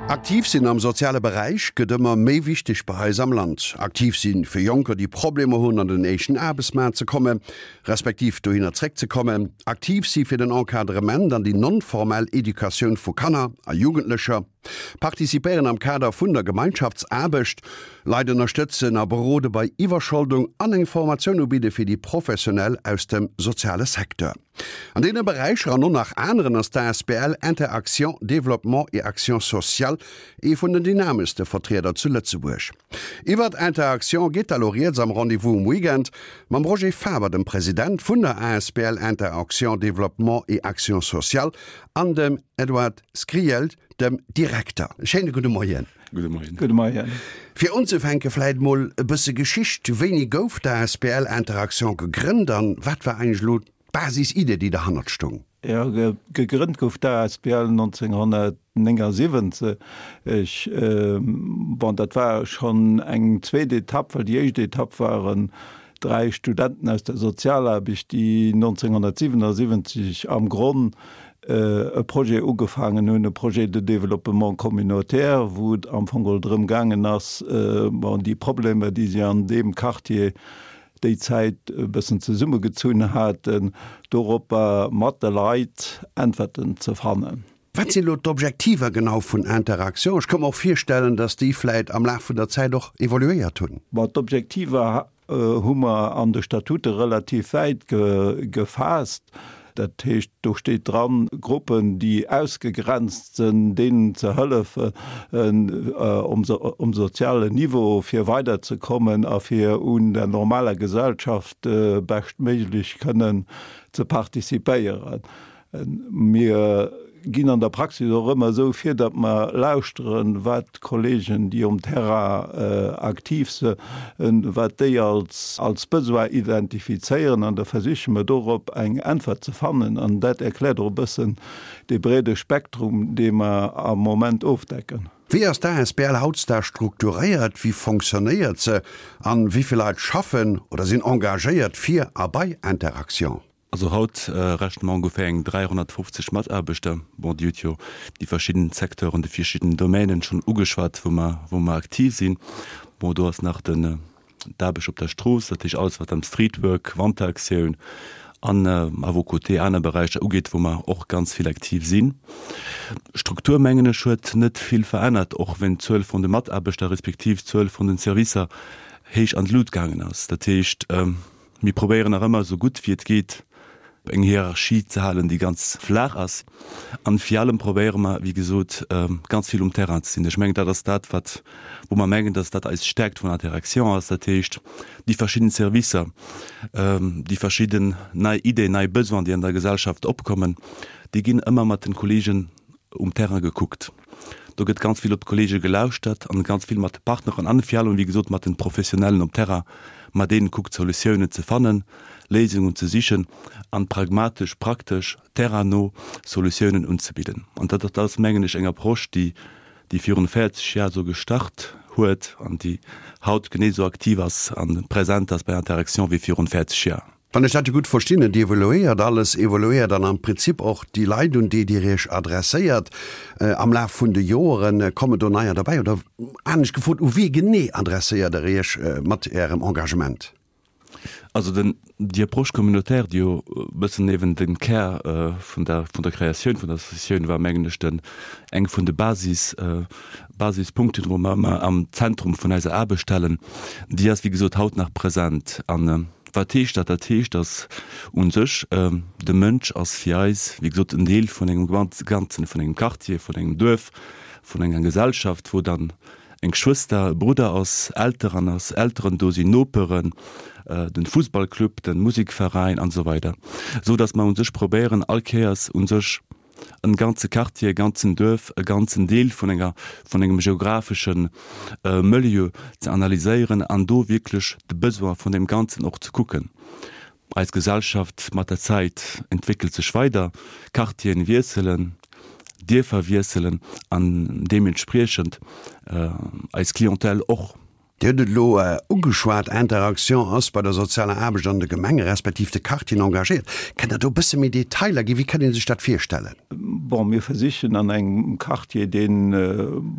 Aktiv sinn am soziale Beräich gëtt ëmmer méi wichteg bei eis am Land. Aktiv sinn fir Jonker, déi Problemer hunn an den éischten Aarbechtsmaart ze kommen, respektiv dohinner zréckzekommen. Aktiv si fir den Encadrement an déi non-formell Educatioun vu Kanner a Jugendlecher. Participéieren am Kader vun der Gemeinschaftsaarbecht. Leit ënnerstëtzen a berode bei Iwwerscholdung an eng Formatioun ubidde fir déi Professionell aus dem soziale Secteur. An deene Beräicher an och nach aneren ass d'ASBL Inter-Action Développement et Action Sociale ee vun den dynameschste Vertrieder zu Lëtzebuerg. Iwwert Inter-Action geet da lo rieds am Rendez-vous um Weekend mam Roger Faber, dem President vun der asbl Inter-Action Développement et Action Sociale an dem Edward Skrijelj, dem Direkter. Schéine gudde Moien. Gudde Moien. Gudde Moien. Fir unzefänke vläit mol e bësse Geschicht, Wéini gouf d'ASBL Inter-Action gegrënnt an wat war eigentlech elo d'Basis-Idee, déi derhannert stoung? Jo, gegrënnt gouf d'ASBL 1979. Bon, dat war schonn eng zweet Etapp, well déi éischt Etapp waren 3 Studenten aus der Sozialaarbecht, déi 1977 am Gronn e Projet ugefaangen hunn, e Projet de développement communautaire, wou et am Fong geholl drëm gaangen ass, bon, déi Problemer, déi si an deem Quartier déi Zäit e bëssen zesummegezunn haten, doropper mat de Leit Äntwerten ze fannen. Wat sinn elo d'Objektiver genau vun Interaction? Ech ka mer och virstellen, datt déi vläit am Laf vun der Zäit och evoluéiert hunn. Bon, d'Objektiver hu mer an de Statute relativ wäit gefaasst. Dat heescht, do steet dran, Gruppen, déi ausgegrenzt sinn, deenen ze hëllefen um sozialen Niveau fir weiderzekommen a fir un der normaler Gesellschaft beschtméiglech kënnen ze participéieren. Mir ginn an der Praxis och ëmmer esou vir, datt mer lauschteren, wat d'Kollegen, déi um Terrain aktiv sinn, wat déi als Besoin identifizéieren an da versiche mer dorop eng Äntwert ze fannen. An dat erkläert och e bëssen dee breede Spektrum, dee mer am Moment ofdecken. Wéi ass d'ASBL hautdesdaags strukturéiert, wéi fonctionnéiert se an wéi vill Leit schaffen oder sinn engagéiert fir a bei Interaction? Also haut rechne mer ongeféier eng 350 Mataarbechter. Bon, Dir hutt jo déi verschidden Secteuren, déi verschidden Domänen schonn ugeschwat, wou mer, wou mer aktiv sinn. Bon, do ass nach den, d'Aarbecht op der Strooss, dat heescht alles, wat am Streetwork, Wanteraktioun an à vos côtés aner Beräicher ugeet, wou mer och ganz vill aktiv sinn. D'Struktur, mengen ech, huet net vill verännert, och wenn d'Zuel vun de Mataarbechter respektiv d'Zuel vun den Servicer héich an d'Lut gaangen ass. Dat heescht, Mir probéieren nach ëmmer esou gutt wéi et geet eng Hierarchie ze halen, déi ganz flaach ass. An vir allem probéiere mer, wéi gesot, ganz vill um Terrain ze sinn. Ech mengen, dat ass dat, wat, wou mer mengen, dass dat eis Stärkt vun der Direktion ass. Dat heescht, déi verschidden Servicer, déi verschidden nei Ideen, nei Besoinen, déi an der Gesellschaft opkommen, déi ginn ëmmer mat den Kollegen um Terrain gekuckt. Do gëtt ganz vill op d'Kollege gelauschtert an ganz vill mat de Partneren an vir allem, wéi gesot, mat den Professionellen um Terrain, mat deenen kuckt, Solutiounen ze fannen, Léisungen ze sichen an pragmatesch, praktesch, terrainno Solutiounen unzebidden. An dat ass, mengen ech, eng Approche, déi, déi virun 40 Jar esou gestart huet an déi haut genee esou aktiv ass a present ass bei Interaction wéi virun 40 Jar. Wann ech dat esou gutt verstinn, et evoluéiert alles, evoluéiert dann am Prinzip och déi Leit, un déi Dir Iech adresséiert. Am Laf vun de Joeren kommen do neier derbäi? Oder anescht gefrot, u wie genee adresséiert Der Iech mat Ärem Engagement? Also den, déi Approche communautaire, déi jo e bëssen eben de Kär vun der, vun der Kreatioun vun der Associatioun war, mengen ech, den, eng vun de Basis, Basispunkten, wou mer ëmmer am Zentrum vun eiser Aarbecht stellen, déi ass, wéi gesot, haut nach present. An Wat heescht dat? Dat heescht, datt u sech de Mënsch ass fir eis, wéi gesot, en Deel vun engem Ganzen, vun engem Quartier, vun engem Duerf, vun enger Gesellschaft, wou dann eng Schwëster, e Brudder ass, Elteren ass, Elteren do sinn, Noperen, den Fussballclub, den Musikveräin an esou weider, esou datt mer u sech probéieren all Kéiers u sech en ganze Quartier, e ganzen Duerf, e ganzen Deel vun enger, vun engem geographeschen Milieu ze analyséieren an do wierklech de Besoin vun deem Ganzen och ze kucken. Eis Gesellschaft mat der Zäit entwéckelt sech weider, Quartieren wiesselen, Dierfer wiesselen an deementspriechend eis Clientèle och. Dir hutt et elo ugeschwat, Interaction ass bei der sozialer Aarbecht an de Gemenge respektiv de Quartieren engagéiert. Kënnt Der do e bësse méi Detailer ginn? Wéi kann ee sech dat virstellen? Bon, mir versichen an engem Quartier, deen,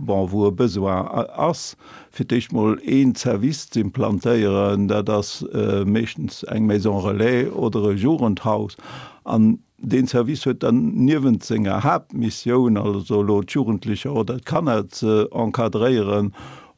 bon, wou e Besoin ass, fir d'éischt mol een Service z'implantéieren. Dat ass meeschtens eng Maison relais oder e Jugendhaus. An Deen Service huet dann niewent senger Haaptmissioun, also elo d'Jugendlecher oder d'Kanner ze encadréieren,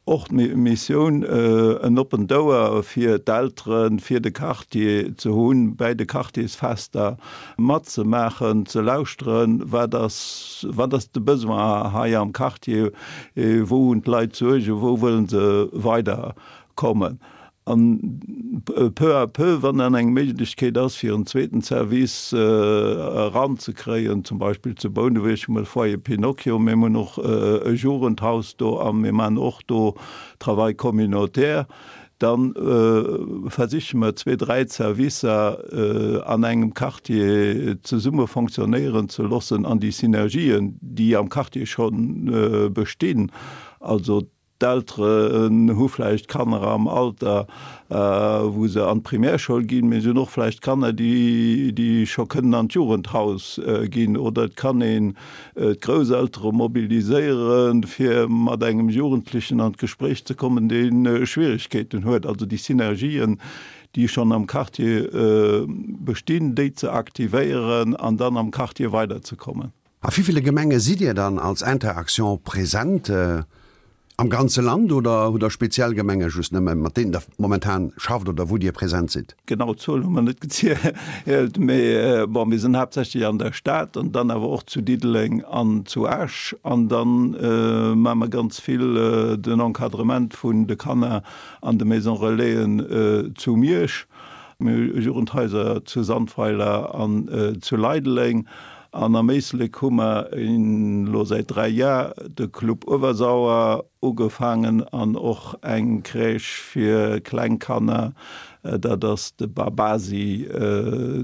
och d'Missioun en oppent Ouer fir d'Elteren, fir de Quartier ze hunn, bäi de Quartiersfester matzemaachen, ze lauschteren, wat ass, wat ass de Besoin hei am Quartier, wou hunn d'Leit Suergen, wou wëllen se weiderkommen. An peu à peu, wann dann eng Méiglechkeet ass, fir en zweeten Service eranzekréien, zum Beispill zu Bouneweg hu mer de Foyer Pinocchio, mir hunn och e Jugendhaus do a mir maachen och do Travail communautaire, da versiche mer zwee, dräi Servicer an engem Quartier zesumme fonctionnéieren ze loossen an déi Synergien, déi am Quartier scho bestinn, also D'Elteren hu vläicht Kanner am Alter, wou se an d'Primärschoul ginn, mee se hunn och vläicht Kanner, déi scho kënnen an d'Jugendhaus ginn. Oder et kann een d'Grousseltere mobiliséieren, fir mat engem Jugendlechen an d'Gespréich ze kommen, dee Schwierigkeeten huet. Also déi Synergien, déi schonn am Quartier bestinn, déi ze aktivéieren an dann am Quartier weiderzekommen. A wéi ville Gemenge sidd Dir dann als Inter-Action present? Am ganze Land oder hutt Der speziell Gemenge just nëmme, mat deenen Der momentan schafft oder wou Dir present sidd? Genau d'Zuel hu mer net gezielt, mee bon, mir sinn haaptsächlech an der Stad an dann awer och zu Diddeleng an zu Esch. An da maache mer ganz vill den Encadrement vun de Kanner an de Maison Relaisen zu Miersch. Mir hu Jugendhaiser zu Sandweiler an zu Leideleng. An am Éislek hu mer elo säit 3 Jar de Club Uewersauer ugefaangen an och eng Crèche fir kleng Kanner, dat ass de Babasi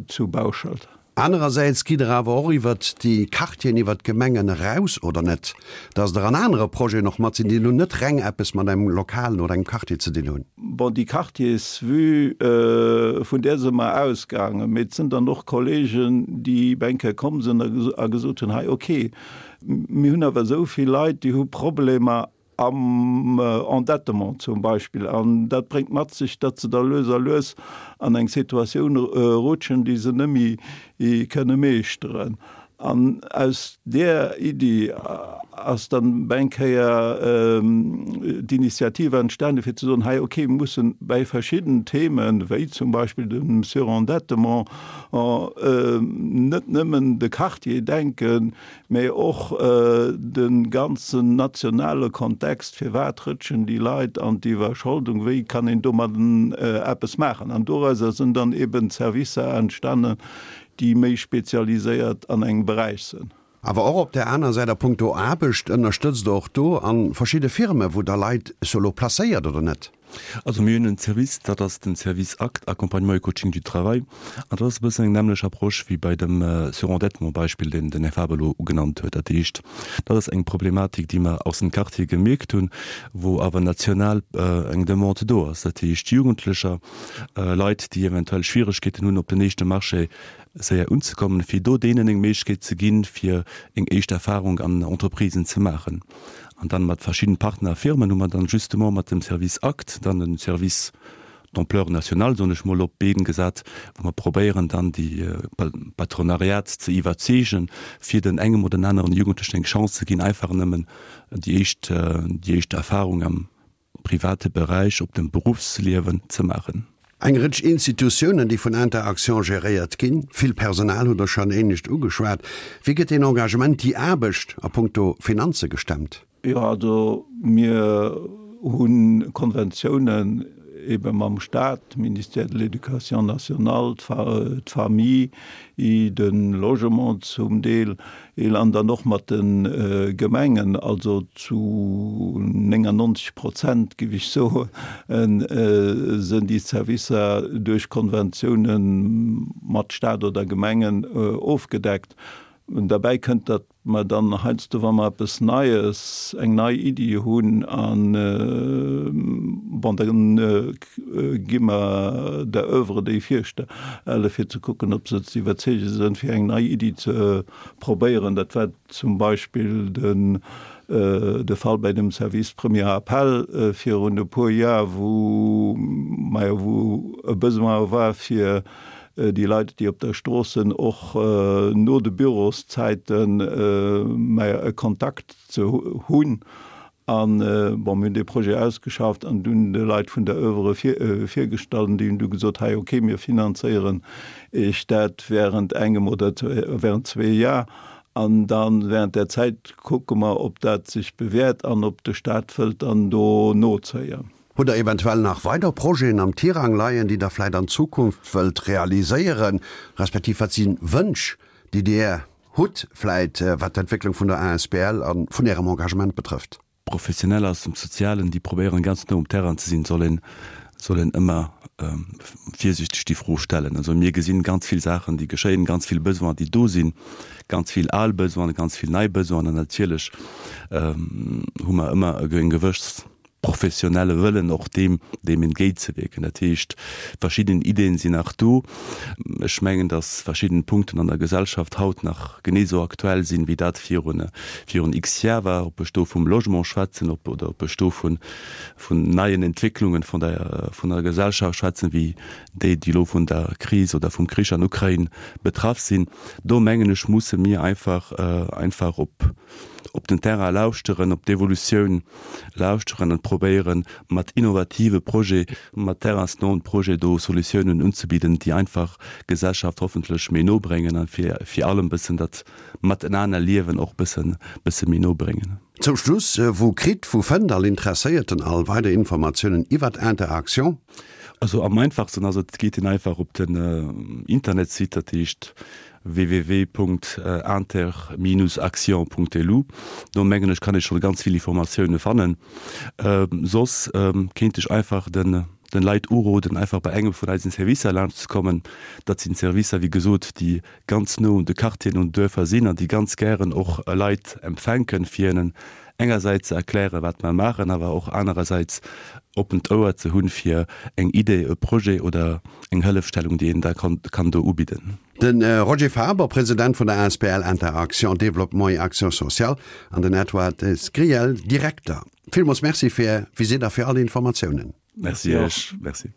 zu Bauschelt. Anerersäits gitt Der awer och iwwert déi Quartieren, iwwert d'Gemengen eraus, oder net, dass Der an anere Projeten och mat sinn, déi elo net reng eppes mat engem Lokalen oder engem Quartier ze dinn hunn? Bon, déi Quartiersvue, vun där si mer ausgaangen. Mee et sinn dann och Kollegen, déi eng Kéier komm sinn a gesot hunn, hei okay, mir hunn awer esou vill Leit, déi hu Problemer am Endettement zum Beispill. An dat bréngt mat sech, datt se da lues a lues an eng Situatioun rutschen, déi se net méi kënne meeschteren. An aus där Iddi ass dann eng Kéier d'Initiative entstanden, fir ze soen, hei, okay, mir mussen bei verschidden Themen, wéi zum Beispill dem Surendettement, net nëmmen de Quartier denken, mä och de ganzen nationale Kontext, firwat rëtschen déi Leit an d'Iwwerscholdung, wéi kann een domadden eppes maachen. An dorauser sinn dann eben Servicer entstanden, déi méi spezialiséiert an engem Beräich sënn. Awer och op där aner Säit a punkto Aarbecht ënnerstëtzt Der och do a verschidde Firme wou Der Leit solo placéiert, oder net? Also mir hunn en Service, dat ass den Service Act, Accompagnement et Coaching du Travail, an dat ass e bëssen eng nämmlech Approche wéi bei dem Surendettement-Beispill, deen den Här Faber elo ugenannt huet. Dat heescht, dat ass eng Problematik, déi mer aus dem Quartier gemierkt hunn, wou awer national eng Demande do ass. Dat heescht, Jugendlecher, Leit, déi eventuell Schwieregkeeten hunn, op den éischte Marché séier unzekommen, fir do deenen eng Méiglechkeet ze ginn, fir eng éischt Erfahrung an Entreprisen ze maachen. An dann mat verschidden Partner a Firmen hu mer dann justement mat dem Service Act dann e Service d'ampleur nationale, soen ech mol, op d'Been gesat, wou mer probéieren dann déi Patronariat ze iwwerzeegen, fir den engem oder den aneren Jugendlechen eng Chance ze ginn, einfach nëmmen déi éischt, déi éischt Erfahrung am private Beräich, op dem Beruffsliewen ze maachen. Eng Rëtsch Institutiounen, déi vun Inter-Action geréiert ginn, vill Personal hutt Der schonn éinescht ugeschwat. Wéi gëtt deen Engagement, déi Aarbecht a punkto Finanze gestemmt? Jo, also mir hu Konventiounen ebe mam Staat, Ministère de l'Éducation nationale, d'Famille, de Logement zum Deel, an dann och mat de Gemengen, also zu 99 Prozent, géif ech soen, sinn déi Servicer duerch Konventioune mat Staat oder Gemengen ofgedeckt. Derbäi kënnt, datt mer dann heiansdo, wa mer eppes Neies, eng nei Iddi hunn, an, bon, da gi mer der Oeuvre déi virstelle fir ze kucken, ob se ze iwwerzeege sinn, fir eng nei Iddi ze probéieren. Dat war zum Beispill den de Fall bei dem Service Premier Appel virun e puer Jar, wou, majo, wou e Besoin war fir déi Leit, déi op der Strooss sinn, och no de Büroszäiten, majo, e Kontakt ze hunn. An, bon, mir hunn dee Projet ausgeschafft an dunn de Leit vun der Oeuvre virgestallt an déi hunn du gesot, hei, okay, mir finanzéieren Iech dat während engem oder während zwee Jar an da während där Zäit kucke mer, ob dat sech bewährt an ob de Stat wëllt dann do nozéien. Hutt Der eventuell nach weider Projeten am Tirang leien, déi Der vläicht an Zukunft wëllt realiséieren, respektiv wat si Wënsch, déi Dir hutt vläicht, wat d'Entwécklung vun der asbl a vun Ärem Engagement betrëfft? Professioneller aus dem Sozialen, déi probéieren ganz no um Terrain ze sinn, soll een, soll een ëmmer virsiichteg déi Fro stellen. Also mir gesinn ganz vill Saachen, déi geschéien, ganz vill Besoinen, déi do sinn, ganz vill al Besoinen, ganz vill nei Besoinen an natierlech hu mer ëmmer eng gewëss professionelle Wëllen och deem, deem entgéintzewierken. Dat heescht, verschidden Ideen sinn nach do. Ech mengen, dass verschidden Punkten an der Gesellschaft haut nach genee esou aktuell sinn, wéi dat virun, virun x Jar war, ob ech do vum Logement schwätzen, ob, oder ob ech do vun, vun neien Entwécklungen vun der, vun der Gesellschaft schwätzen, wéi déi, déi elo vun der Kris oder vum Krich an Ukrain betraff sinn. Do mengen ech, musse mir einfach, einfach op, op den Terrain lauschteren, op d'Evolutioun lauschteren an probéieren, mat innovative Projet, mat terrainsnoen Projet do Solutiounen unzebidden, déi einfach d'Gesellschaft hoffentlech méi no bréngen an fir vir allem bëssen dat Matenanerliewen och bëssen bësse méi no bréngen. Zum Schluss, Wou kritt, wou fënnt all Interesséierten all weider Informatiounen iwwert Interaction? Also am einfachsten ass et, geet een einfach op den Internetsite, dat heescht www.inter-action.lu. Do mengen ech kann ee scho ganz vill Informatioune fannen. Soss kéint ech einfach den den Leit uroden einfach bei engem vun eisen Servicer laanscht ze kommen. Dat sinn Servicer wéi gesot déi ganz no un de Quartieren, un den Duerfer sinn an déi ganz gären och Leit empfänken fir hinnen engersäits ze erklären wat mer maachen, awer och anerersäits oppent Ouer ze hunn fir eng Idee, e Projet oder eng Hëllefstellung déi een da kann do ubidden. De Roger Faber, President vun der asbl Inter-Action Développement et Action Sociale an den Edward Sgriel, Direkter. Villmools Merci fir Är Visitt a fir all Informatiounen. Merci Iech. Merci.